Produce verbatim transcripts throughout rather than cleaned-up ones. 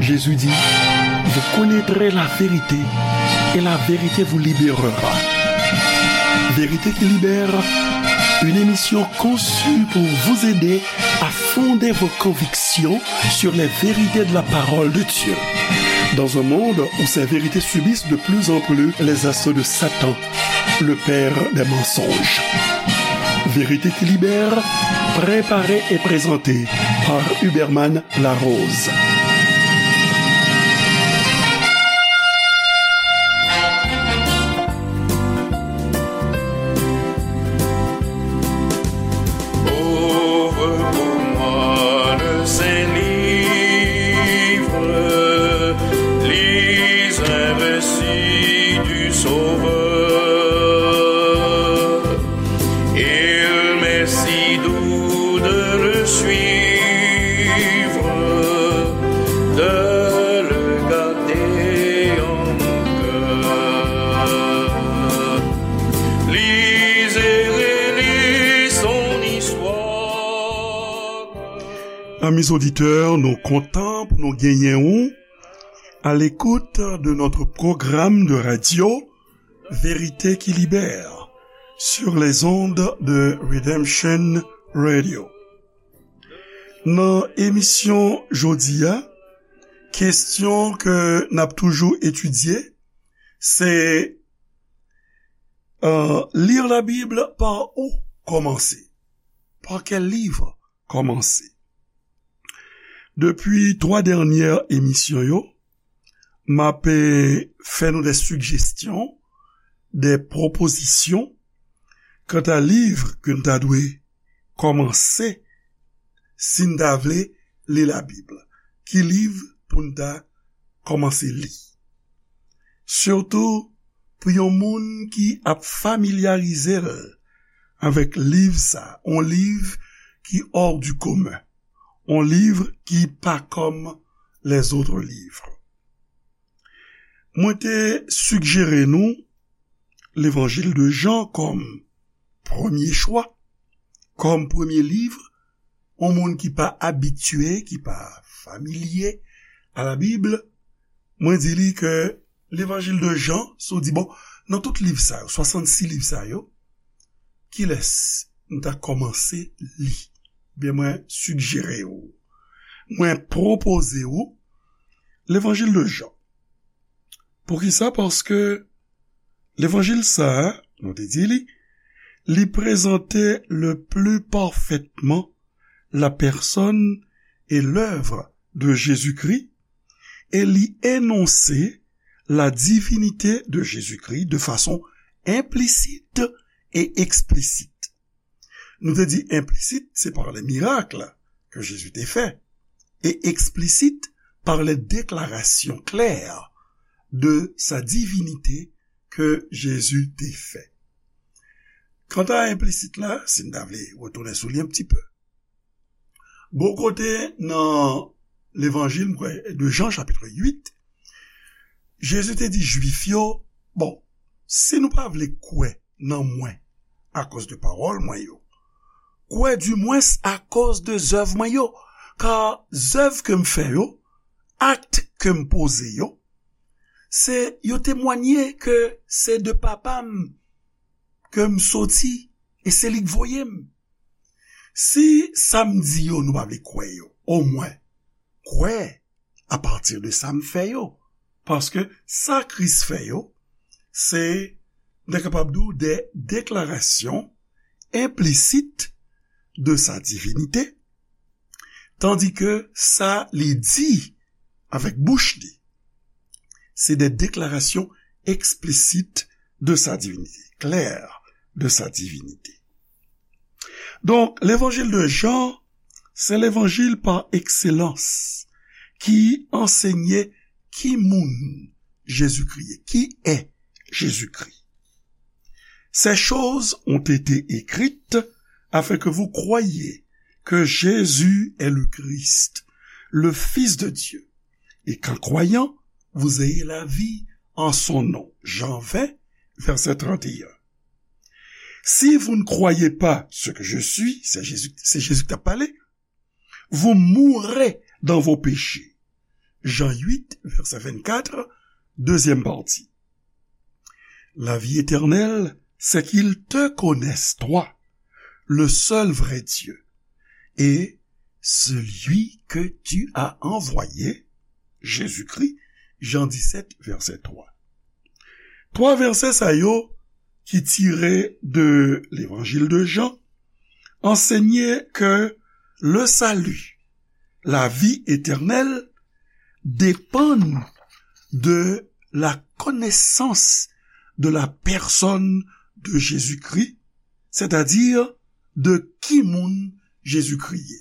Jésus dit, vous connaîtrez la vérité et la vérité vous libérera. Vérité qui libère, une émission conçue pour vous aider à fonder vos convictions sur les vérités de la parole de Dieu. Dans un monde où ces vérités subissent de plus en plus les assauts de Satan, le père des mensonges. Vérité qui libère, préparée et présentée par Huberman Larose. Ouvre pour moi le Saint-Livre, lis un récit du Sauveur. Il m'est si doux de le suivre, de le garder en mon cœur. Lis et relis son histoire. Amis auditeurs, nou kontan pou nou genyen ou à l'écoute de notre programme de radio Vérité qui libère sur les ondes de Redemption Radio. Nan emisyon jodi a, kesyon ke n ap toujou etidye, se, euh, lire la Bible, par où commencer? Par quel livre commencer? Depi twa dènyè emisyon yo, m ap, eh, fè nou de sijesyon, de pwopozisyon kanta liv ke n ta dwe kòmanse si n ta vle li Labib. Ki liv pou n ta kòmanse li? Sitou pou yon moun ki ap familyarize l avèk liv sa, yon liv ki hors du commun, yon liv ki pa kòm les autres livres. Mwen te sijere nou Levanjil de Jan kòm premye chwa, kòm premye liv, yon moun ki pa abitye, ki pa familye a Labib, mwen di li ke Levanjil de Jan, si w di, bon, nan tout liv sa yo, swasannsis liv sa yo, kilès m ta kòmanse li? Ebyen, mwen sijere w, mwen pwopoze w Levanjil de Jan. Poukisa? Paske Levanjil sa a, nou te di li, li prezante le plus parfaitement la personne et l'œuvre de Jésus-Christ et li énonse la divinité de Jésus-Christ de façon implicite et explicite. Nou te di implisit, se par les miracles que Jésus te fait, et explicite par les déclarations claires de sa divinité que Jésus te fait. Kanta implisit la, si n ta vle retounen sou li yon ti pe, bò kote nan Levanjil, m kwè, de Jan, chapit uit, Jezi te di Jwif yo, bon, si nou pa vle kwè nan mwen akoz de pawòl mwen yo, kwè dimwens akoz de zèv mwen yo, ka zèv ke m fè yo, akt ke m poze yo, se yo temwanye ke se de Papa m ke m soti e se li k voye m. Si sa m di yo nou pa vle kwè yo, omwen kwè apati de sa m fè yo. Paske sa Kris fè yo, se, n ta kapab di w, de deklarasyon enplisit de sa divinite, tandike sa li di avèk bouch li, se de deklarasyon eksplisit de sa divinite, klè de sa divinite. Donk, Levanjil de Jan, se Levanjil pa ekselans ki ansenye ki moun Jezikri ye, qui est Jésus-Christ. Ces choses ont été écrites afin que vous croyiez que Jésus est le Christ, le Fils de Dieu, et qu'en croyant, vous ayez la vie en son nom. Jean vingt, verset trente et un. Si vous ne croyez pas ce que je suis, c'est Jésus, c'est Jésus qui t'a parlé, vous mourrez dans vos péchés. Jan uit, vèsè vennkat, dezyèm pati. La vie éternelle, c'est qu'ils te connaissent, toi, le seul vrai Dieu, et celui que tu as envoyé, Jésus-Christ, Jan disèt, vèsè twa. Twa vèsè sa yo ki tire de Levanjil de Jan ansenye ke le salut, la vie éternelle, dépendent de la connaissance de la personne de Jésus-Christ, c'est-à-dire de ki moun Jezikri ye.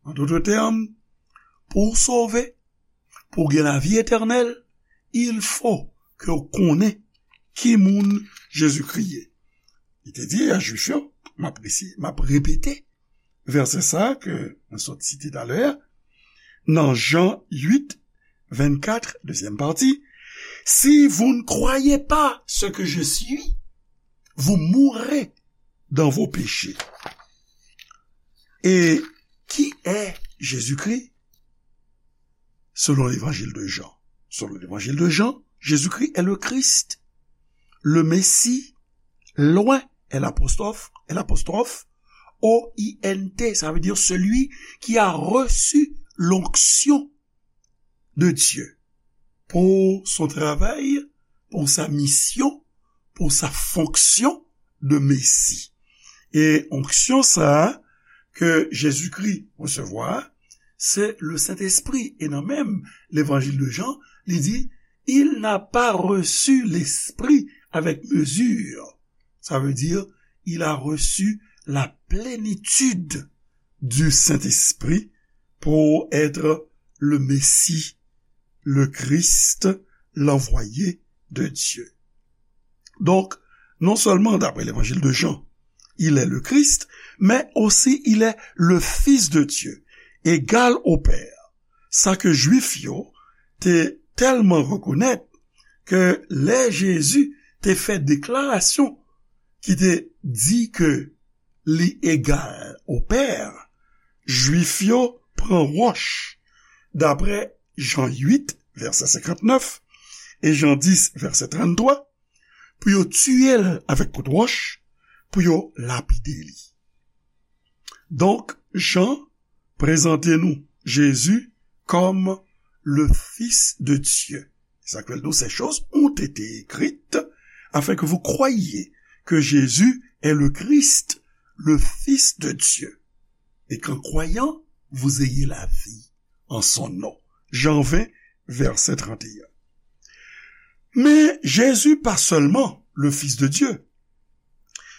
An dout tèm, pou w sove, pou w gen lavi etènèl, il fo ke w konnen ki moun Jezikri ye. Li te di a Jwif yo, m ap resi-, m ap repete vèsè sa a ke mwen sot site talè a, nan Jan uit, vennkat, dezyèm pati, si vous ne croyez pas ce que je suis, vous mourrez dans vos péchés. Et qui est Jésus-Christ? Selon l'évangile de Jean. Selon l'évangile de Jean, Jésus-Christ est le Christ, le Messie, loin, L apostrophe, L apostrophe, O I N T, ça veut dire celui qui a reçu l'onction de Dieu pour son travail, pour sa mission, pour sa fonction de Messie. E onksyon sa a ke Jezikri resevwa, se le Sentespri. E nan menm Levanjil de Jan, li di, il n'a pas reçu l'Esprit avec mesure. Ça veut dire, il a reçu la plénitude du Saint-Esprit pour être le Messie, le Christ, l'envoyé de Dieu. Donc, non seulement d'après l'évangile de Jean, il est le Christ, mais aussi il est le Fils de Dieu, égal au Père. Sa ke Jwif yo te tèlman rekonèt ke lè Jezi te fè deklarasyon ki te di ke li egal o Pè, Jwif yo pran wòch, daprè Jan uit, vèsè senkantnèf, e Jan dis, vèsè tranntwa, pou yo tiye l avèk kout wòch, pou yo lapide li. Donk, Jan prezante nou Jezi kòm le Fils de Dieu. Sa k fè l di, ces choses ont été écrites afin que vous croyiez que Jésus est le Christ, le Fils de Dieu, et qu'en croyant, vous ayez la vie en son nom. Jan ven, vèsè tranteyen. Men Jezi pa sèlman le Fils de Dieu.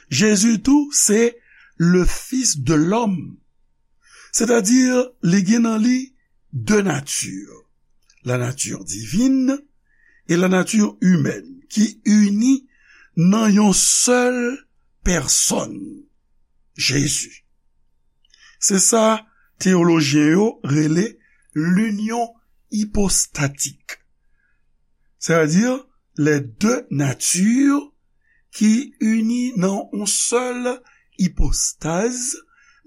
Jezi tou se le Fils de l'homme. Sètadi, li gen nan li de nati, la nature divine et la nature humaine, ki ini nan yon sèl pèsòn, Jezi. Se sa teyolojyen yo rele l'union hypostatique. Sètadi, les deux natures ki ini nan yon sèl ipostaz,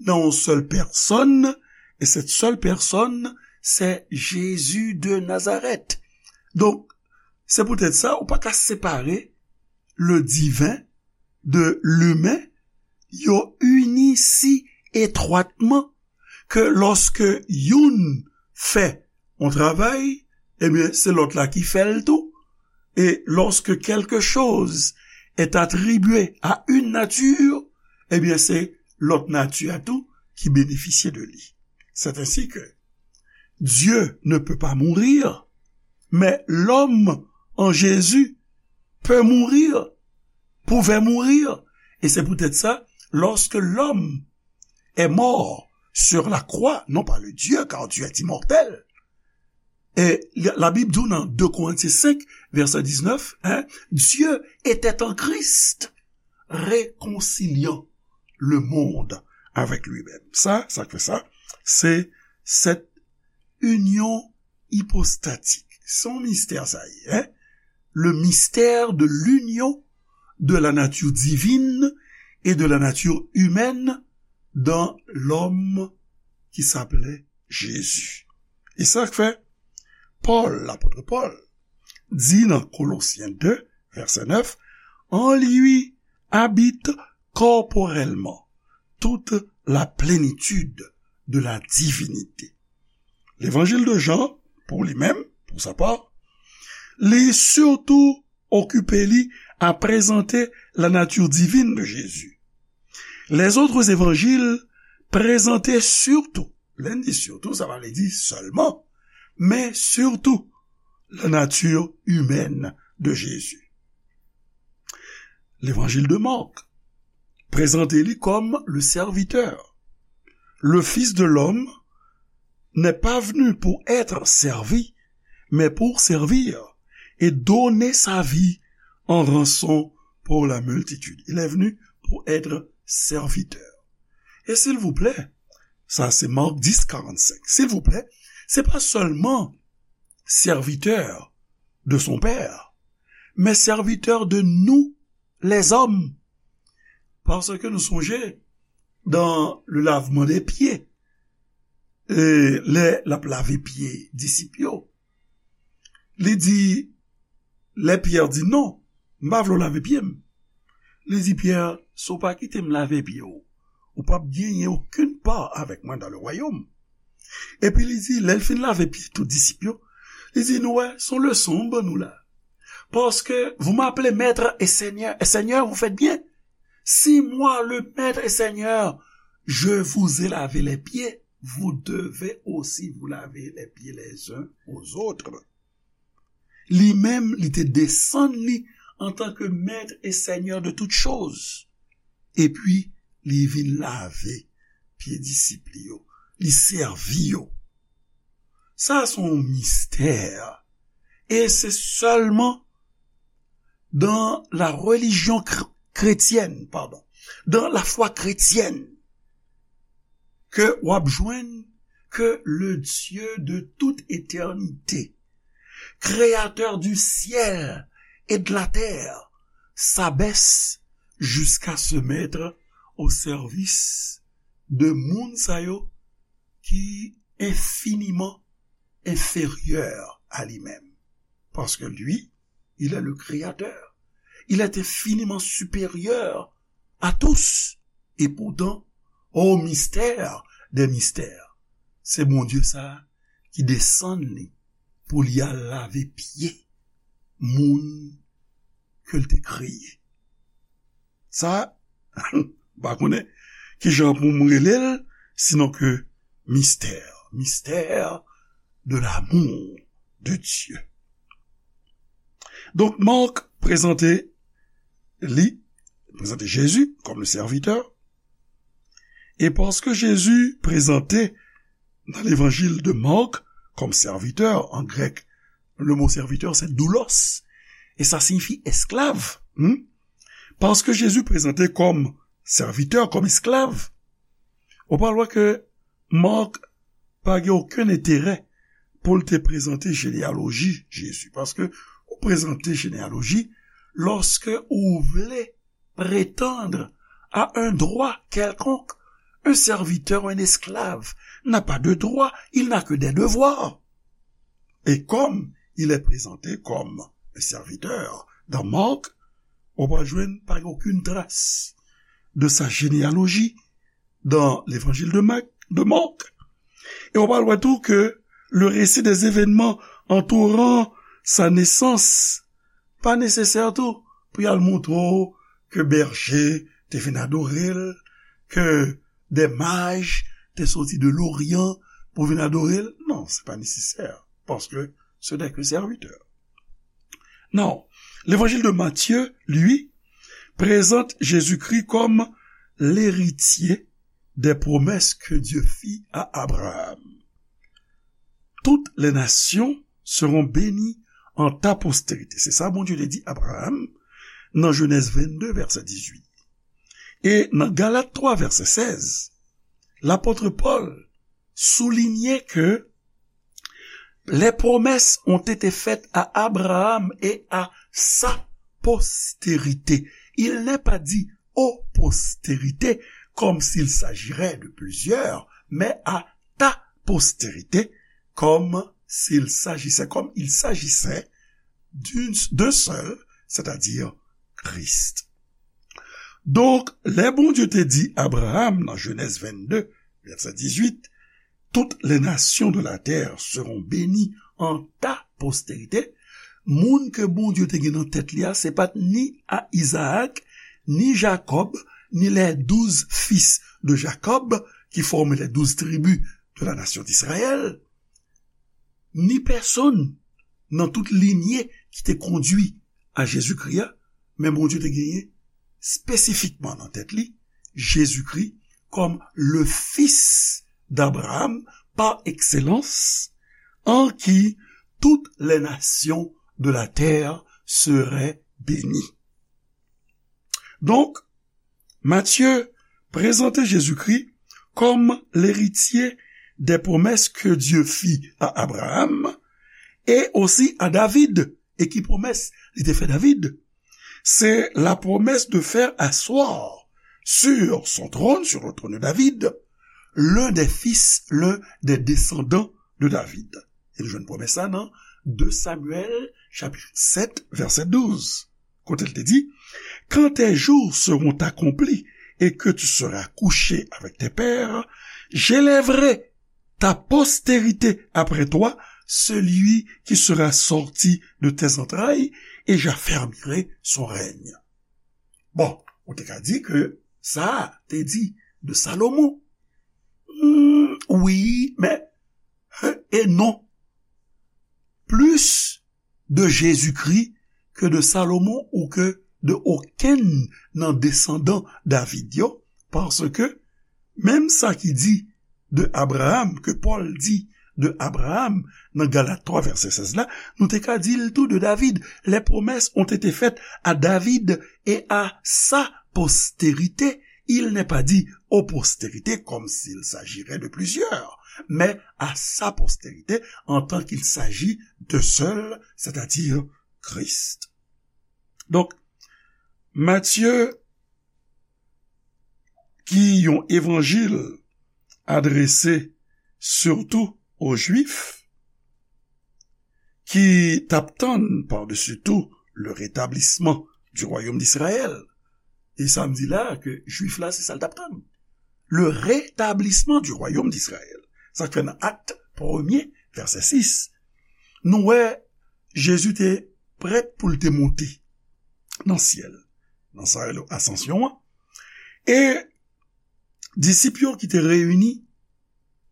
nan yon sèl pèsòn, e cette seule personne, c'est Jésus de Nazareth. Donk, se poutèt sa, ou pa ka separe le divin de l'humain, yo ini si etwatman ke lòske youn fè yon travay, ebyen, se lòt la ki fè l tou. Et lorsque quelque chose est attribué à une nature, ebyen, se lòt nati a tou ki benefisye de li. C'est ainsi que Dieu ne peut pas mourir, mais l'homme en Jésus peut mourir, pouvait mourir. Et c'est peut-être ça, lorsque l'homme est mort sur la croix, non pas le Dieu, car Dieu est immortel. Et la, la Bible dit dans deux Corinthiens cinq, verset dix-neuf, hein, Dieu était en Christ, réconciliant le monde avec lui-même. Sa, sa k fè sa, se cette union hypostatique. Se yon mistè sa ye, hein? Le mystère de l'union de la nature divine et de la nature humaine dans l'homme qui s'appelait Jésus. E sa k fè, Pòl, lapòt Pòl, di nan Kolosyen de, vèsè nèf, en lui habite corporellement toute la plénitude de la divinité. Levanjil de Jan, pou li menm, pou sa pa, li sitou okipe li a prezante la nature divine de Jésus. Les autres évangiles présentent surtout, lè n di surtout, sa pa vle di sèlman, men surtout la nature humaine de Jésus. Levanjil de Marc prezante li kòm le serviteur. Le Fils de l'homme n'est pas venu pour être servi, mais pour servir et donner sa vie en rançon pour la multitude. Il est venu pour être serviteur. E silvouplè, sa se Marc dix, quarante-cinq. Silvouplè, se pa sèlman serviteur de son Père, mais serviteur de nous, les hommes. Paske nou sonje, dans le lavement des pieds, e lè l ap lave pye disip yo, li di, lè Pyè di, non, m pa vle w lave pye m. Li di Pyè, si w pa kite m lave pye w, ou p ap genyen okenn pa avèk mwen dans le royaume. Epi li di, lè l fin lave pye tout disip yo, li di, nou wè, se yon leson m ban nou la. Parce que vous m'appelez maître et seigneur, et seigneur, vous faites bien. Si moi, le maître et seigneur, je vous ai lavé les pieds, vous devez aussi vous laver les pieds les uns aux autres. Li menm, li te desann li en tant que maître et seigneur de toutes choses. Epi, li vin lave pye disip li yo. Li sèvi yo. Sa se yon mistè. E se sèlman dans la religion chr- chrétienne, pardon, dans la foi chrétienne, ke w ap jwenn ke le Dieu de toute éternité, créateur du ciel et de la terre, s'abaisse jusqu'à se mettre au service de moun sa yo ki infiniman inférieur à lui-même. Parce que lui, il est le créateur. Il est infiniment supérieur à tous. Et pourtant, au mystère des mystères, se Bondye sa ki desann li pou li al lave pye moun ke l te kreye. Sa, m pa konnen kijan pou m rele l, sinon ke mystère, mystère de l'amour de Dieu. Donk, Marc prezante li, prezante Jezi kòm le serviteur, e paske Jezi prezante nan levanjil de Marc kòm serviteur, an grèk, le mot serviteur, c'est doulos, e sa siyifi esklav. Hmm? Paske Jezi prezante kòm serviteur, kòm esklav, ou pral wè ke Marc pa gen okenn enterè pou l te prezante jeneyaloji Jezi. Paske ou prezante jeneyaloji lòske ou vle prétendre à un droit quelconque. Un serviteur, un esclave, n'a pas de droit, il n'a que des devoirs. Et comme il est présenté comme un serviteur dans Marc, ou pa jwenn pa okenn tras de sa généalogie dans l'évangile de Marc, de Marc. E w pral wè tou ke le récit des événements entourant sa naissance pa nesesè tou pou y al montre w ke bèje te vin adore l, ke des mages te soti de l'Orient pou vin adore l. Non, se pa nesesè, paske ce n'est que serviteur. Non, l'évangile de Matthieu, lui, présente Jésus-Christ comme l'héritier des promesses que Dieu fit à Abraham. Toutes les nations seront bénies en ta postérité. Se sa Bondye te di Abraham nan Jenèz vennde, vèsè dizuit. E nan Galat twa, vèsè sèz, lapòt Pòl soulinye ke les promesses ont été faites à Abraham et à sa postérité. Il n'est pas dit aux postérités, comme s'il s'agirait de plusieurs, mais à ta postérité, comme s'il s'agissait, comme il s'agissait d'une, d'un seul, c'est-à-dire Christ. Donk, lè Bondye te di Abraham nan Jenèz vennde, vèsè dizuit, toutes les nations de la terre seront bénies en ta postérité, moun ke Bondye te gen nan tèt li a, se pa t ni a Izaak, ni Jakòb, ni les douze fils de Jacob, qui forment les douze tribus de la nation d'Israël, ni pèsonn nan tout linye ki te kondui a Jezikri a, men Bondye te genyen espesifikman nan tèt li Jezikri kòm le fils d'Abraham par excellence, en qui toutes les nations de la terre seraient bénies. Donk, Matthieu prezante Jezikri kòm leritye des promesses que Dieu fit à Abraham et aussi à David. E ki pwomès li te fè David? C'est la promesse de faire asseoir sur son trône, sur le trône de David, l'un des fils, l'un des descendants de David. E nou jwenn pwomès la nan de Samuel, chapit sèt, vèsè douz, kote l te di, quand tes jours seront accomplis et que tu seras couché avec tes pères, j'élèverai ta postérité après toi, celui qui sera sorti de tes entrailles, et j'affermirai son règne. Bon, ou te ka di ke sa te di de Salomon. Hmm, wi, men, e non. Plis de Jezikri ke de Salomon ou ke de okenn nan desandan David yo, paske menm sa ki di de Abraham, ke Pòl di de Abraham nan Galat twa vèsè sèz la, nou te ka di l tou de David. Les promesses ont été faites à David et à sa postérité. Il n'est pas dit aux postérités comme s'il s'agirait de plusieurs, mais à sa postérité en tant qu'il s'agit d'un seul, c'est-à-dire Christ. Donk, Matye ki yon evanjil adrese sitou o Jwif, ki t ap tann par-dessus tout le rétablissement du royaume d'Israël. E sa m di la, ke Jwif la, se sa l t ap tann. Le rétablissement du royaume d'Israël. Sa k fè nan Akt premye, vèsè sis, nou wè Jezi te prèt pou l te monte nan syèl, nan sa yo rele asansyon an. E disip yo ki te reyini,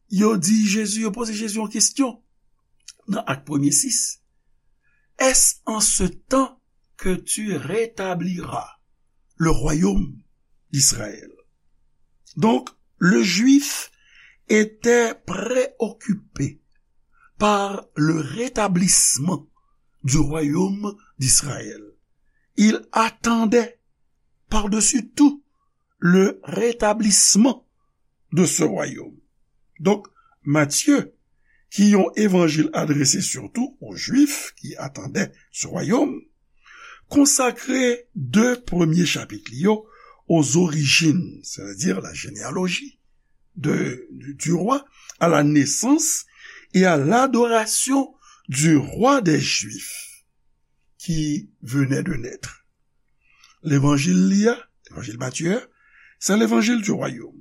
yo di Jezi, yo poze Jezi yon kesyon nan Akt premye sis. Est-ce en ce temps que tu rétabliras le royaume d'Israël? Donc, le Juif était préoccupé par le rétablissement du royaume d'Israël. Il attendait par-dessus tout le rétablissement de ce royaume. Donk, Matye, ki yon evanjil adrese sitou o Jwif ki atandan se wayòm, konsakre de premye chapit li yo aux origines, c'est-à-dire la généalogie de, du, du roi, à la naissance et à l'adoration du roi des Juifs qui venait de naître. Levanjil li a, levanjil Matye a, se levanjil di wayòm.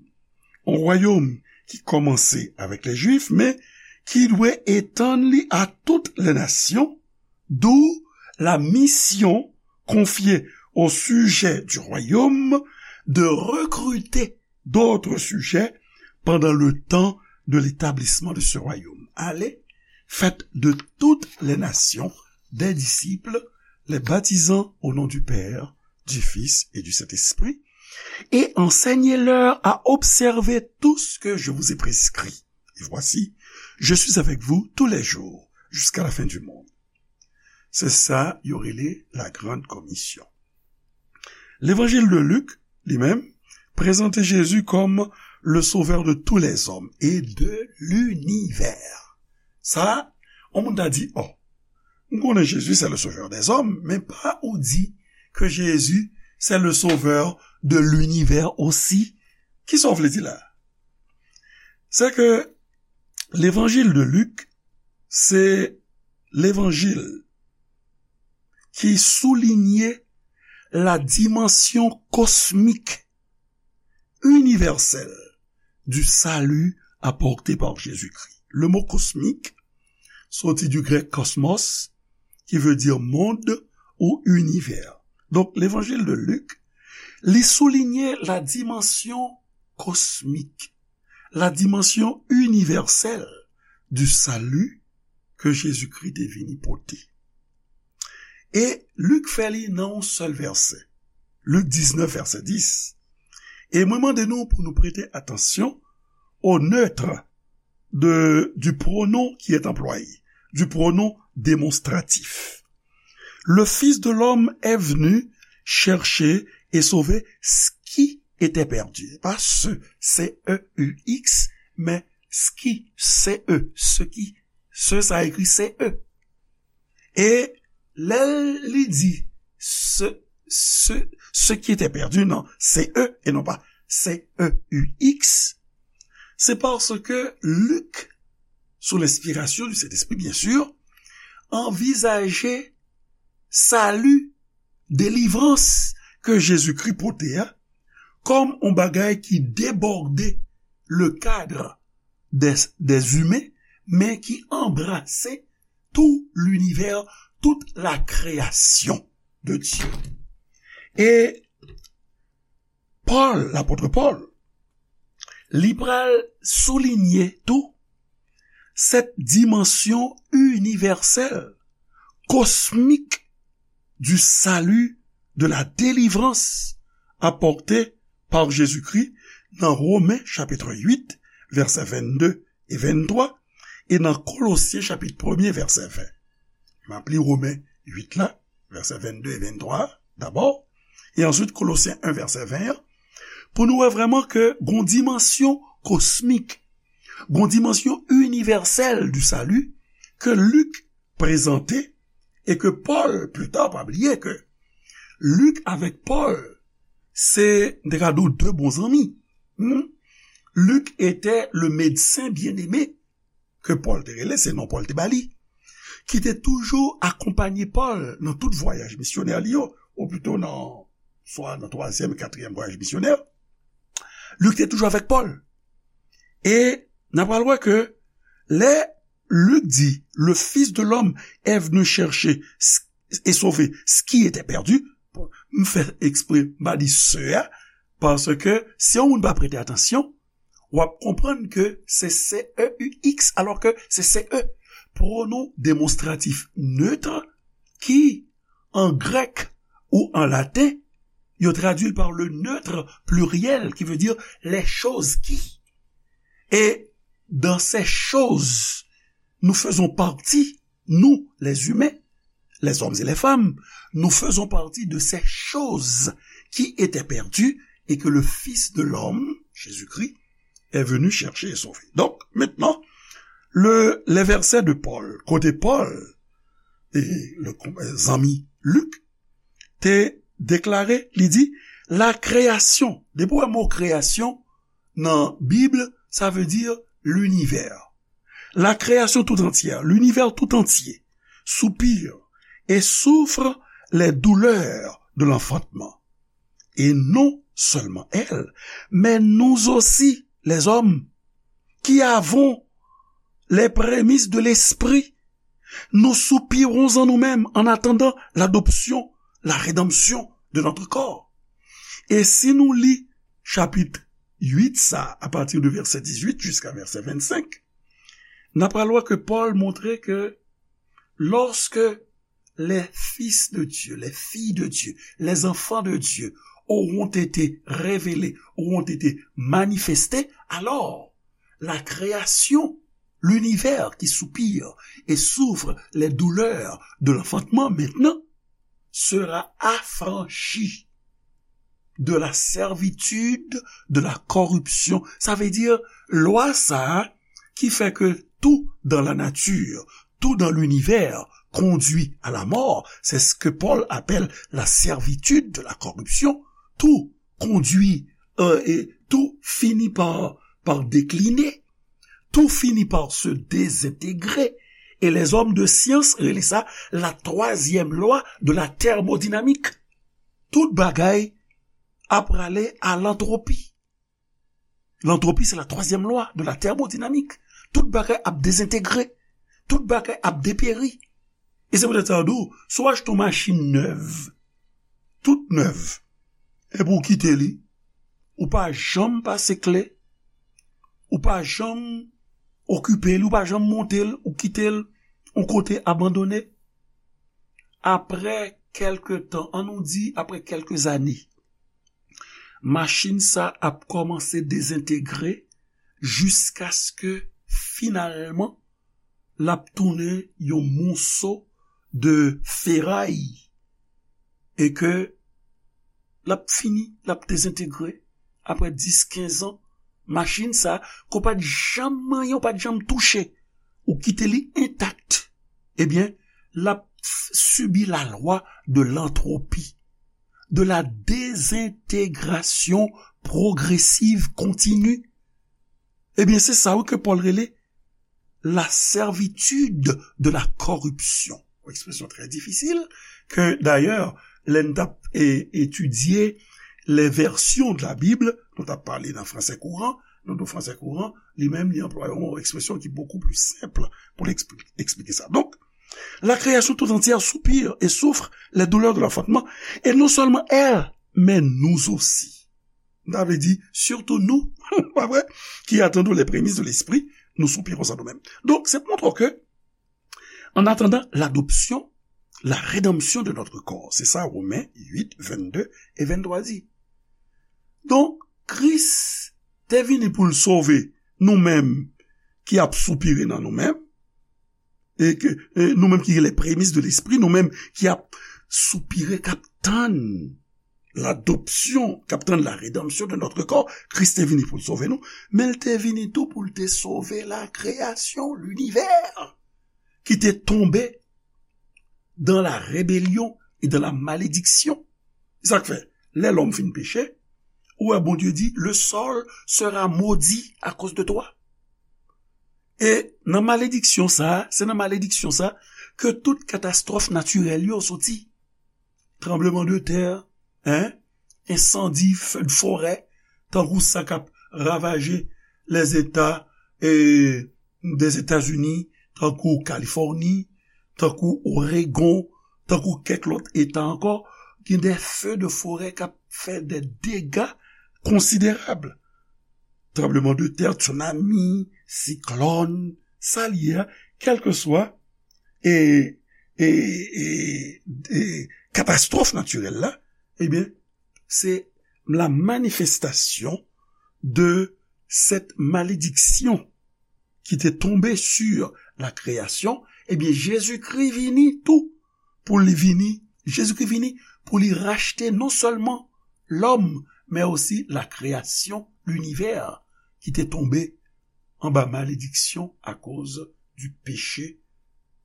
Yon wayòm ki kòmanse avèk lè Jwif, men ki dwe etann li a tout lè nasyon, d'où la mission confiée aux sujets du royaume de recruter d'autres sujets pendant le temps de l'établissement de ce royaume. Allez, faites de toutes les nations des disciples, les baptisant au nom du Père, du Fils et du Saint-Esprit, et enseignez-leur à observer tout ce que je vous ai prescrit. Et voici, je suis avec vous tous les jours, jusqu'à la fin du monde. Se sa yo rele la grande commission. Levanjil de Lik, li menm, prezante Jezi kòm le sauveur de tous les hommes et de l'univers. Sa, yon moun ta di, oh, m konnen Jezi se le sauveur des hommes, men pa ou di ke Jezi se le sauveur de l'univers aussi. Kisa w vle di la? Se ke levanjil de Lik, se levanjil ki soulinye la dimension cosmique universelle du salut apporté par Jésus-Christ. Le mot cosmique soti du grec cosmos, qui veut dire monde ou univers. Donk, levanjil de Lik, li soulinye la dimension cosmique, la dimension universelle du salut ke Jezikri te vini pote. E Lik fè li nan yon sèl vèsè. Lik diznèf, vèsè dis. E mwen mande nou pou nou prete atansyon au neutre de, du pronom qui est employé, du pronom démonstratif. Le Fils de l'homme est venu chercher et sauver ce qui était perdu. Pas ce, C E U X, men ce qui, C E, ce qui, ce sa ekri C E. E lè li di ce, ce, ce qui était perdu, non, C E, e non pa C E U X, se paske Lik, sou lenspirasyon du Sentespri, byen si, anvizaje sali, delivrans ke Jezikri pote a, kòm yon bagay ki debòde le cadre des, des humains, men ki anbrase tout l'univers, toute la création de Dieu. E Pòl, lapòt Pòl, li pral soulinye tou cette dimension universelle, cosmique du salut, de la délivrance apportée par Jésus-Christ nan Women chapit uit, vèsè vennde e venntwa, e nan Kolosyen chapit premye, vèsè ven. M ap li Women uit la, vèsè vennde e venntwa dabò, e answit Kolosyen en, vèsè ven an, pou nou wè vrèman ke gon dimansyon kosmik, gon dimansyon inivèsèl du salut ke Lik prezante e ke Pòl, pli ta, pa bliye ke Lik avèk Pòl, se, m te ka di w, de bon zanmi. Hmm? Luc était le médecin bien-aimé ke Pòl te rele, se non Pòl te ba li, ki te toujou akonpanye Pòl nan tout vwayaj misyonè li yo, ou pito nan, swa nan twazyèm, katriyèm vwayaj misyonè. Lik te toujou avèk Pòl. E n a pral wè ke lè Lik di, le Fils de l'homme est venu chercher ce et sauver ce qui était perdu. Bon, m fè eksprè m pa di ce a, paske si yon moun pa prete atansyon, w ap konprann ke se C E U X, alò ke se C E. Pronom demonstratif neutre ki, an grèk ou an laten, yo tradui l par le neutre pluriel, qui veut dire les choses qui. Et dans ces choses, nous faisons partie, nous, les humains, les hommes et les femmes, nous faisons partie de ces choses qui étaient perdues et que le Fils de l'homme, Jésus-Christ, est venu chercher et sauver. Donc, maintenant, le, les versets de Paul, kote Pòl, e le, zanmi Lik, te deklare, li di, la création, depi w wè mo création nan Bib, sa vle di l'univers. La création tout entière, l'univers tout entier, soupire et souffre les douleurs de l'enfantement. Et non seulement elle, mais nous aussi, les hommes, qui avons les prémices de l'esprit, nous soupirons en nous-mêmes en attendant l'adoption, la rédemption de notre corps. E si nou li chapit uit sa, apati de vèsè dizuit jiska vèsè vennsenk, n a pral wè ke Pòl montre ke lorsque les fils de Dieu, les filles de Dieu, les enfants de Dieu auront été révélés, auront été manifestés, alors la création, l'univers qui soupire et souffre les douleurs de l'enfantement maintenant sera affranchie de la servitude de la corruption. Sa vle di, lwa sa a ki fè ke tout dans la nature, tout dans l'univers conduit à la mort, c'est ce que Paul appelle la servitude de la corruption. Tout conduit, euh, et tout finit par, par décliner. Tout finit par se désintégrer. E lèzòm de syans rele sa la twazyèm lwa de la tèmodinamik. Tout bagay ap prale a lantwopi. Lantwopi, se la twazyèm lwa de la tèmodinamik. Tout bagay ap dezentegre. Tout bagay ap deperi. E se poutèt sa yo di w, si w achte yon machin nèv, tout nèv, epi w kite li, ou pa janm pase kle, ou pa janm okipe li, ou pa janm monte l, ou kite l yon kote abandone. Apre kèlke tan, an nou di apre kèlke zane, machin sa ap kòmanse dezentegre jiskaske finalman l ap tounen yon moso de feray e ke l ap fini, l ap dezentegre apre dis, kenz an. Machin sa, ke w pa t janm manyen, w pa t janm touche, ou kite li entak, ebyen, l ap f- sibi la lwa de lantwopi, de la désintegration progressive continue. Ebyen, se sa wi ke Pòl rele la servitude de la corruption. Yon ekspresyon trè difisil, ke dayè, lè n t ap e, etidye les versions de la Bible, nou t ap pale nan fransè kouran, nou di fransè kouran, li menm, li anplwaye yon ekspresyon ki beaucoup plus simple pou l ekspli- eksplike sa. Donk, la création tout entière soupire et souffre les douleurs de l'enfantement, et non seulement elle, mais nous aussi. Sa vle di, sitou nou, pa vre, qui attendons les prémices de l'esprit, nous soupirons en nous-mêmes. Donk, se pou montre w ke, en attendant l'adoption, la rédemption de notre corps. Se sa Women uit, vennde e venntwa di. Donk, Kris te vini pou l sove nou menm ki ap soupire nan nou menm, e ke e nou menm ki les prémices de l'esprit, nou menm ki ap soupire, k ap tann l'adoption, k ap tann la rédemption de notre corps. Kris te vini pou l sove nou, men l te vini tou pou l te sove la création, l'univers, ki te tonbe dans la rébellion et dans la malédiction. Se sa k fè, lè lòm fin peche, ou wè Bondye di, le sol sera maudit à cause de toi. E nan malediksyon sa, se nan malediksyon sa ke tout katastwòf natirèl yo soti. Tranbleman de tè, en, ensandi, feu de forêt, tankou sa k ap ravaje lèzeta e, dèzetazini, tankou Kalifòni, tankou Oregon, tankou kèk lòt eta ankò, gen de feu de forêt k ap fè de dega konsiderab. Tranbleman de tè, tsunami, siklòn, sa l ye a, kèlkeswa e, e, e, e katastwòf natirèl la, ebyen, se la manifestasyon de cette malédiction ki te tonbe sur la création, ebyen, Jezikri vini tou pou li vini, Jezikri vini pou li rachte non sèlman lòm, men osi la création, l'univers, ki te tonbe anba malediksyon akoz du péché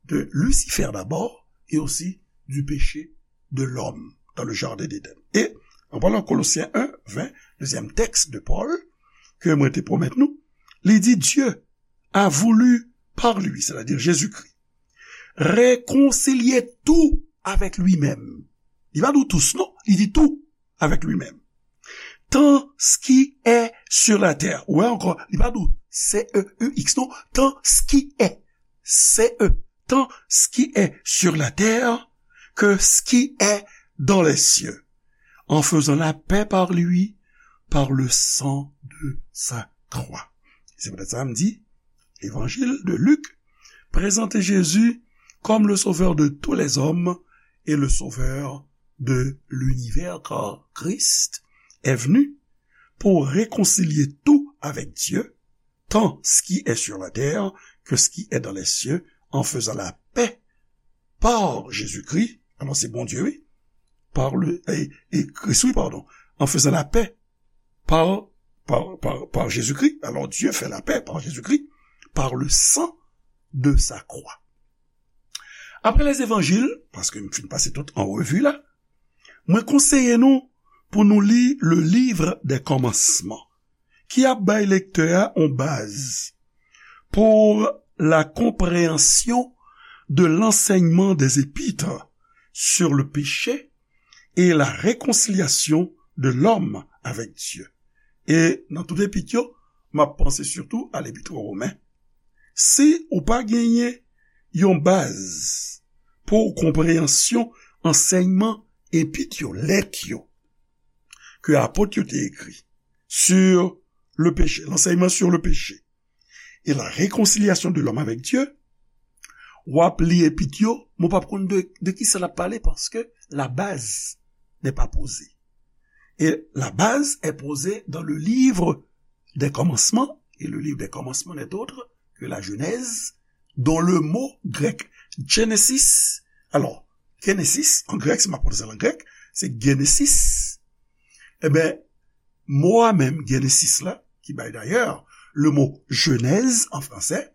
de Lucifer d'abord et aussi du péché de l'homme dans le jardin d'Éden. E, an palan Kolosyen en, ven, dezyèm tèks de Pòl, ke mwen te pwomèt nou, li di, Dieu a voulu par lui, c'est-à-dire Jésus-Christ, réconcilier tout avec lui-même. Li pa di w tous, non, li di tout avec lui-même. Tant ce qui est sur la terre. Ou wè ankò, li pa di w C E U X, non, tant ce qui est. C E. Tant ce qui est sur la terre que ce qui est dans les cieux, en faisant la paix par lui, par le sang de sa croix. Se poutèt sa m di, Évangile de Luc présente Jésus comme le sauveur de tous les hommes et le sauveur de l'univers, car Christ est venu pour réconcilier tout avec Dieu, tant ce qui est sur la terre que ce qui est dans les cieux, en faisant la paix par Jésus-Christ. Alò, se Bondye, wi. Par le, e, e Kris, wi, padon. En faisant la paix par, par, par, par Jésus-Christ. Alors, Dieu fait la paix par Jésus-Christ, par le sang de sa croix. Après les évangiles, paske m fin pase tout an revi la, mwen konseye nou pou nou li le livre des commencements, ki ap bay lektè a yon baz pour la compréhension de l'enseignement des épîtres sur le péché et la réconciliation de l'homme avec Dieu. E nan tout epit yo, m ap panse sitou a lepit Women. Si ou pa genyen yon baz pou konpreyansyon ansèyman epit yo, lèt yo, ke apot yo te ekri, sur le péché, l'enseignement sur le péché et la réconciliation de l'homme avec Dieu, w ap li epit yo, men w p ap konn de, de kisa l ap pale, paske la base n'est pas posée. Et la base est posée dans le livre des commencements, et le livre des commencements n'est autre que la Genèse, dont le mot grec Genesis, alors, Genesis, en grec, si m ap pwononse l an grèk, se Genesis. Eben, mo a menm, Genesis la, ki bay dayè le mo Genèse en français,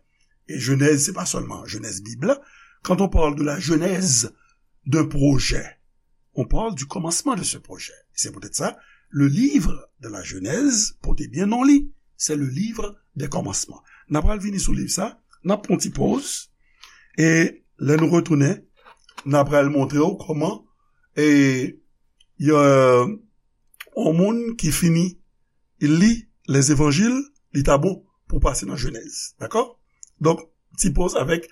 et Genèse, c'est pas seulement Genèse Bible. Quand on parle de la genèse d'un projet, on parle du commencement de ce projet. C'est peut-être ça, le livre de la Genèse, pote byen non li, c'est le livre des commencements. N a pral vini sou liv sa, n ap pran ti poz, e lè nou retounen, n a pral montre w kòman, e, y a, yon moun ki fini li lèzevanjil, li ta bon pou pase nan Jenèz. Dakò? Donk, ti poz avèk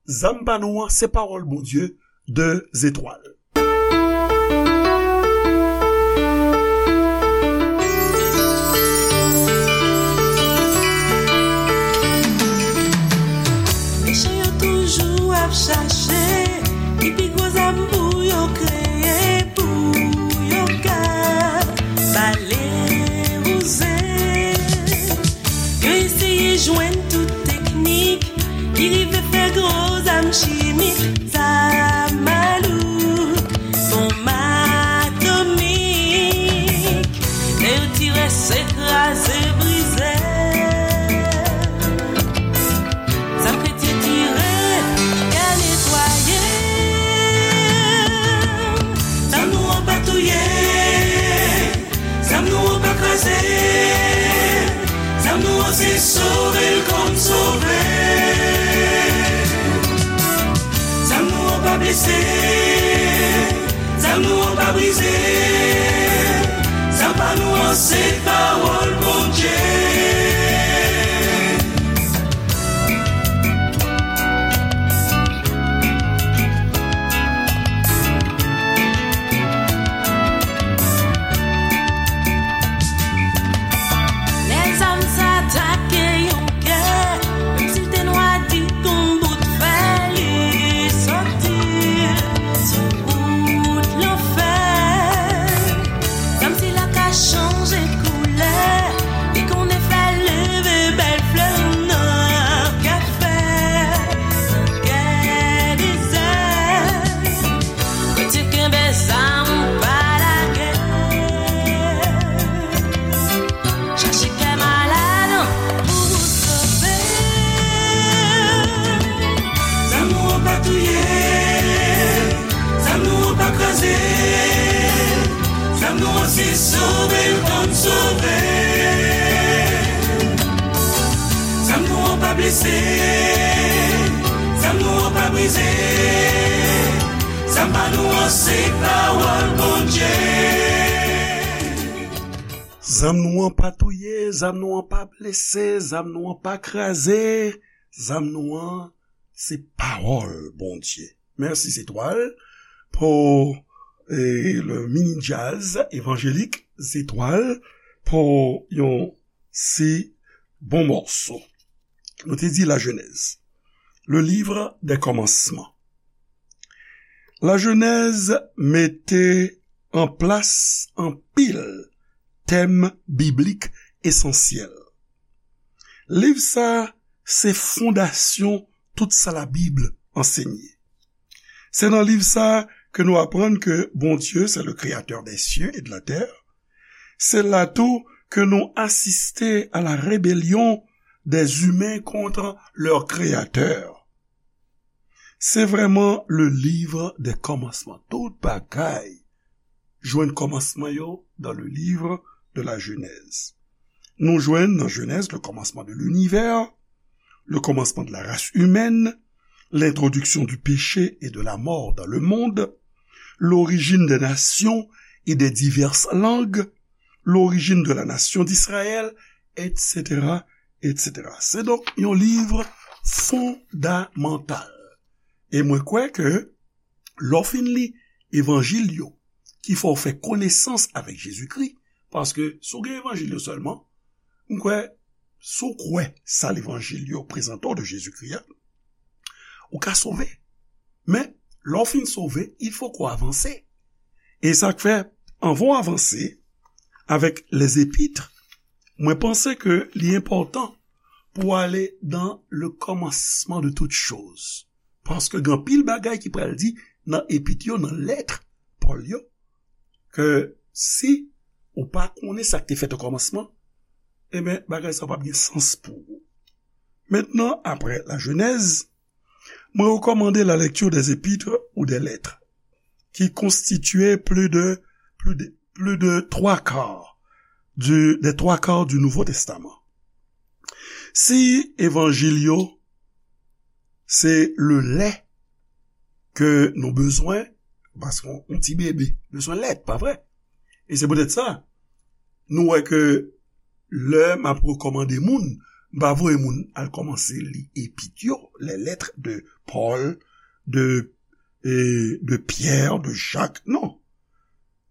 Zam pa nou an, se pawòl Bondye de Zetwal. Mechan yo toujou ap chache ki pi gwo zam pou yo kreye, pou yo ka bale wouze. Yo eseye jwenn tout teknik ki rive fè gwo zam chimik, zam malouk, bonm atomik. Lè yo tire, se kraze, brize. Zam kretyen tire, kè netwaye. Zam nou an pa touye. Zam nou an pa kraze. Zam nou an se sove l kòm sove. Zam nou an pa blese. Zam nou an pa brize. Zam pa nou an se pawòl Bondye. Lè zam sa atake yon kè, menm si l te nwa di kon bout fè, li soti sou wout lanfè. Zam sila ka chanje koulè, li konnen fè leve bèl flè nan kafè, nan kè dezè. Kretyen kenbe zam, pa lage. Chache kè malad pou w sove. Zam nou an pa touye. Zam nou an pa kraze. Zam nou an se sove l kòm sove. Zam nou an pa blese. Zam nou an pa brize. Zam pa nou an se pawòl Bondye. Zam nou an pa touye, zam nou an pa blese, zam nou an pa kraze, zam nou an se pawòl Bondye. Mèsi Zetwal pou, eh, le mini jazz évangélique Zetwal pou yon si bon mòso. Nou te di Lajenèz, le livre des commencements. Lajenèz mete an plas anpil tèm biblik esansyèl. Liv sa a se fondasyon tout sa Labib ansenye. Se nan liv sa a ke nou aprann ke Bondye, c'est le créateur des cieux et de la terre. Se la tou ke nou asiste à la rébellion des humains contre leur créateur. Se vrèman le livre des commencements. Tout bagay jwenn kòmansman yo dans le livre de la Genèse. Nou jwenn nan Jenèz le commencement de l'univers, le commencement de la race humaine, l'introduction du péché et de la mort dans le monde, l'origine des nations et des diverses langues, l'origine de la nation d'Israël, et cetera, et cetera. Se donk yon liv fondamantal. E mwen kwè ke lè w fin li evanjil yo, ki fè w fè konesans avèk Jezikri, paske si w gen evanjil yo sèlman, m kwè, si w kwè sa levanjil yo prezante w de Jezikri a, ou ka sove. Men, lè w fin sove, il faut qu'on avance. E sa k fè, anvan w avanse avèk les épîtres, mwen panse ke li enpòtan pou w ale dans le commencement de toutes choses. Paske gen anpil bagay ki pral di nan epit yo, nan lèt Pòl yo, ke si ou pa konnen sa k te fèt o kòmansman, ebyen, bagay sa p ap gen sans pou ou. Maintenant, après la Genèse, mwen rekòmande la lecture des épîtres ou des lettres, qui constituaient plus de, plus de, plus de trois quarts du, des trois quarts du Nouveau Testament. Si evanjil yo, se le lait ke nou bezwen, paske yon, yon ti bebe bezwen lèt, pa vre? E se poutèt sa, nou wè ke lè m ap rekòmande moun, m pa voye moun al kòmanse li epit yo, les lettres de Paul, de, e, de Pierre, de Jacques, non.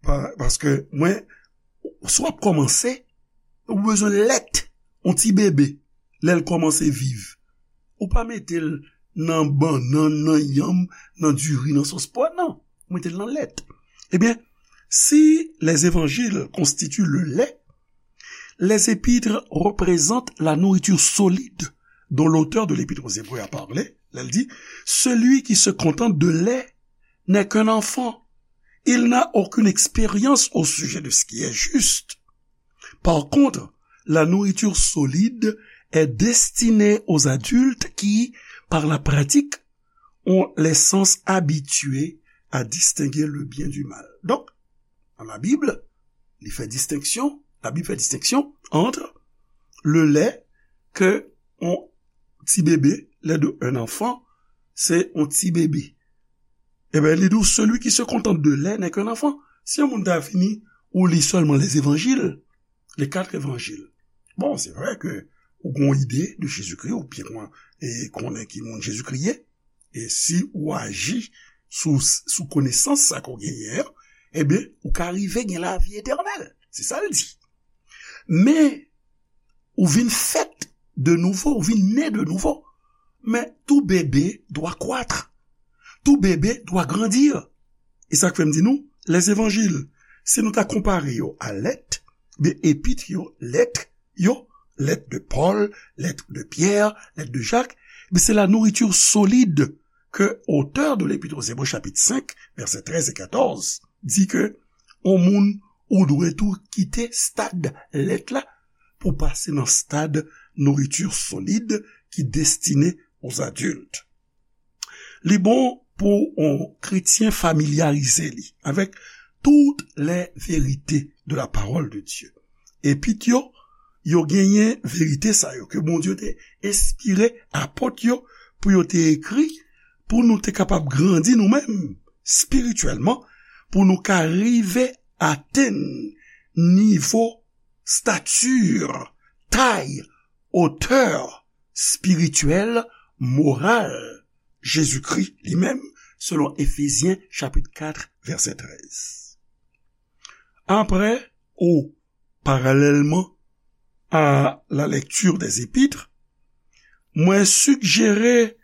Pa, paske mwen, si w ap kòmanse, ou bezwen lèt, yon ti bebe, lè l kòmanse viv. Ou pa mete l nan bannann, nan yanm, nan diri, nan sòs pwa, non. Ou mete l nan lèt. Ebyen, si les évangiles constituent le lait, les épîtres représentent la nourriture solide dont l'auteur de l'Épître aux Hébreux a parlé. Lè l di, celui qui se contente de lait n'est qu'un enfant. Il n'a aucune expérience au sujet de ce qui est juste. Par contre, la nourriture solide est destinée aux adultes qui, par la pratique, ont les sens habitués à distinguer le bien du mal. Donk, nan Labib, li fè distenksyon, Labib fè distenksyon ant le lait ke yon ti bebe, lait de un enfant, se yon ti bebe. Ebyen, li di w, celui qui se contente de lait n'est qu'un enfant. Si yon moun ta vini, ou li sèlman les évangiles, les quatre évangiles. Bon, se vre ke ou gen yon ide de Jezikri, ou byen kon-, e konnen ki moun Jezikri ye, e si ou aji sou, sou konesans sa ke w genyen an, ebyen, ou ka rive gen lavi etènèl. Se sa l di. Men, ou vin fèt de nouvo, ou vin ne de nouvo. Men tout bébé doit croître. Tout bébé doit grandir. E sa k fè m di nou, les évangiles, si nou ta konpare yo a lèt, ben, epit yo, lèt yo, lettre de Paul, lettre de Pierre, lettre de Jacques, ben, c'est la nourriture solide que auteur de l'Épître aux Hébreux, chapitre cinq, versets treize et quatorze, di ke yon moun ou dwe tou kite stad lèt la pou pase nan stad nourriture solide ki destine aux adultes. Li bon pou yon kretyen familyarize li avèk toutes les vérités de la parole de Dieu. Epit yo, yo genyen verite sa yo ke Bondye te enspire apòt yo pou yo te ekri, pou nou te kapab grandi nou menm espirityèlman, pou nou ka rive atenn nivo, stati, tay, otè espirityèl, moral Jezikri li menm, selon Efezyen chapit kat, vèsè trèz. Apre, ou paralèlman à la lecture des épîtres, mwen sijere